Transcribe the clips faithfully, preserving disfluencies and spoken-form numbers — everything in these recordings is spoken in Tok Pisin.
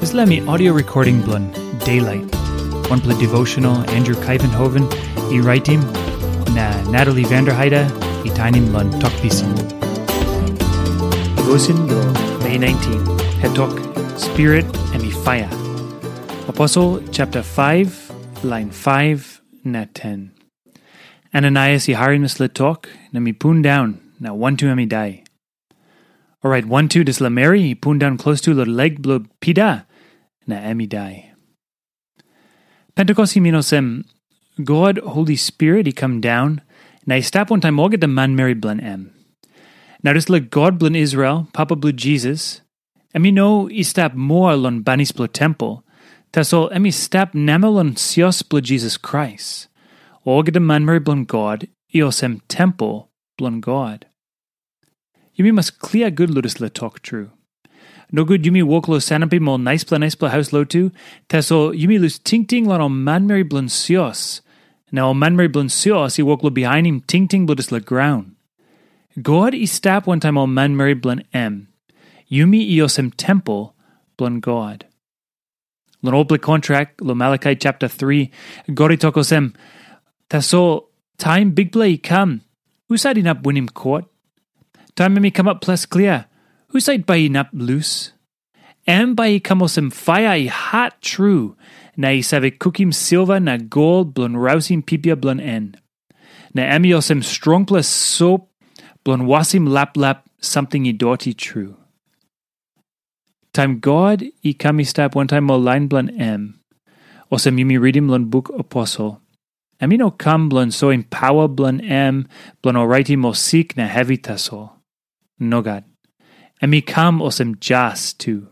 Dispela mi audio recording bilong Daylight, wanpela devotional Andrew Kaivenhoven i raitim, na Natalie Vanderheide i tainim long Tok Pisin. Devotion bilong Mei nineteen, het tok, Spirit em i fire. Aposel chapter five, line five na ten. Ananias i harim dispela tok, na mi pundaun, na wantu em i dai. Orait wantu dispela meri i pundaun klostu long lek bilong Pita, na em i dai. Pentekost i min olsem, God Holi Spirit i kam daun, na i stap wantaim olgeta manmeri bilong em. Na dispela God bilong Israel, Papa bilong Jisas, em i no i stap moa long banis bilong tempel, tasol em i stap namel long sios bilong Jisas Krais. Olgeta manmeri bilong God i olsem tempel bilong God. Yumi mas klia gut long dispela tok tru. Nogut yumi wok long sanapim ol naispela naispela haus lotu, tasol yumi lus tingting long ol manmeri bilong sios. Na ol manmeri bilong sios i wok long bihainim tingting bilong dispela graun. God i stap wantaim ol manmeri bilong em. Yumi i olsem tempel bilong God. Long olpela kontrak, long Malakai chapter three, God i tok olsem, tasol taim Bikpela i kam, husat inap winim kot? Taim em i kamap ples klia, husat bai inap lus? Em bai i kam olsem paia i hat tru, na i save kukim silva na gol bilong rausim pipia bilong en. Na em i olsem strongpela sop bilong wasim laplap samting i doti tru. Taim God i kam i stap wantaim ol lain bilong em, olsem yumi ritim long buk Aposel, em i no kam bilong soim pawa bilong em bilong oraitim ol sik na hevi tasol. Nogat. Em i kam olsem jas tu.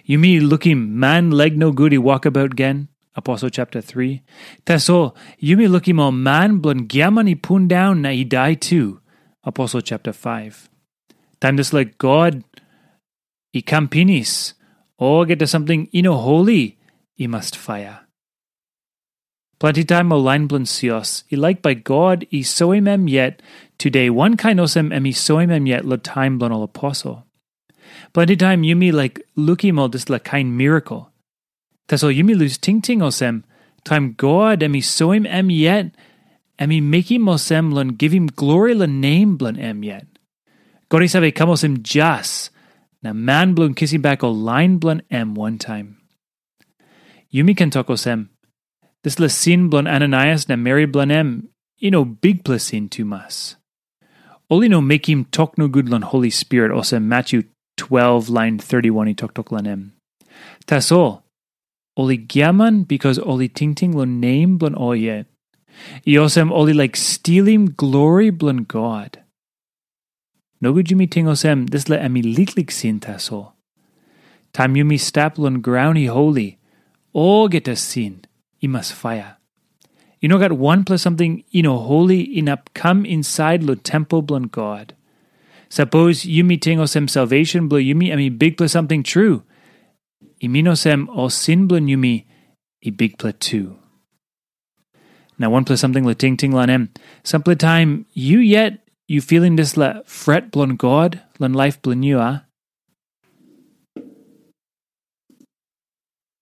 Yumi lukim man laik nogut i wokabaut gen, Aposel chapter three. Tasol, yumi lukim ol man bilong giaman i pundaun na i dai tu, Aposel chapter five. Taim dispela God i kam pinis, olgeta samting i no holi i mas faia. Planti taim ol lain bilong sios i laik bai God i soim em yet tude wankain olsem em i soim em yet long taim bilong ol aposel. Planti taim yumi laik lukim ol dispela kain mirakel. Tasol yumi lus tingting olsem, taim God em i soim em yet, em i mekim olsem long givim glori long nem bilong em yet. God i save kam olsem jas, na man bilong kisim bek ol lain bilong em wantaim. Yumi ken tok olsem, dispela sin bilong Ananaias na meri bilong em i no bikpela sin tumas. Ol i no mekim tok nogut long Holi Spirit olsem Matyu twelve lain thirty-one i toktok long em. Tasol, ol i giaman bikas ol i tingting long nem bilong ol yet. I olsem ol i laik stilim glori bilong God. Nogut yumi ting olsem dispela em i liklik sin tasol. Taim yumi stap long graun i holi, olgeta sin i mas faia. I no gat wanpela samting i no holi inap kam insait long tempel bilong God. Sapos yumi ting olsem salvation bilong yumi em i bikpela samting tru, i min olsem ol sin bilong yumi i bikpela tu. Na wanpela samting long tingting long em, sampela taim yu yet yu filim dispela fret bilong God long laip bilong yu, a?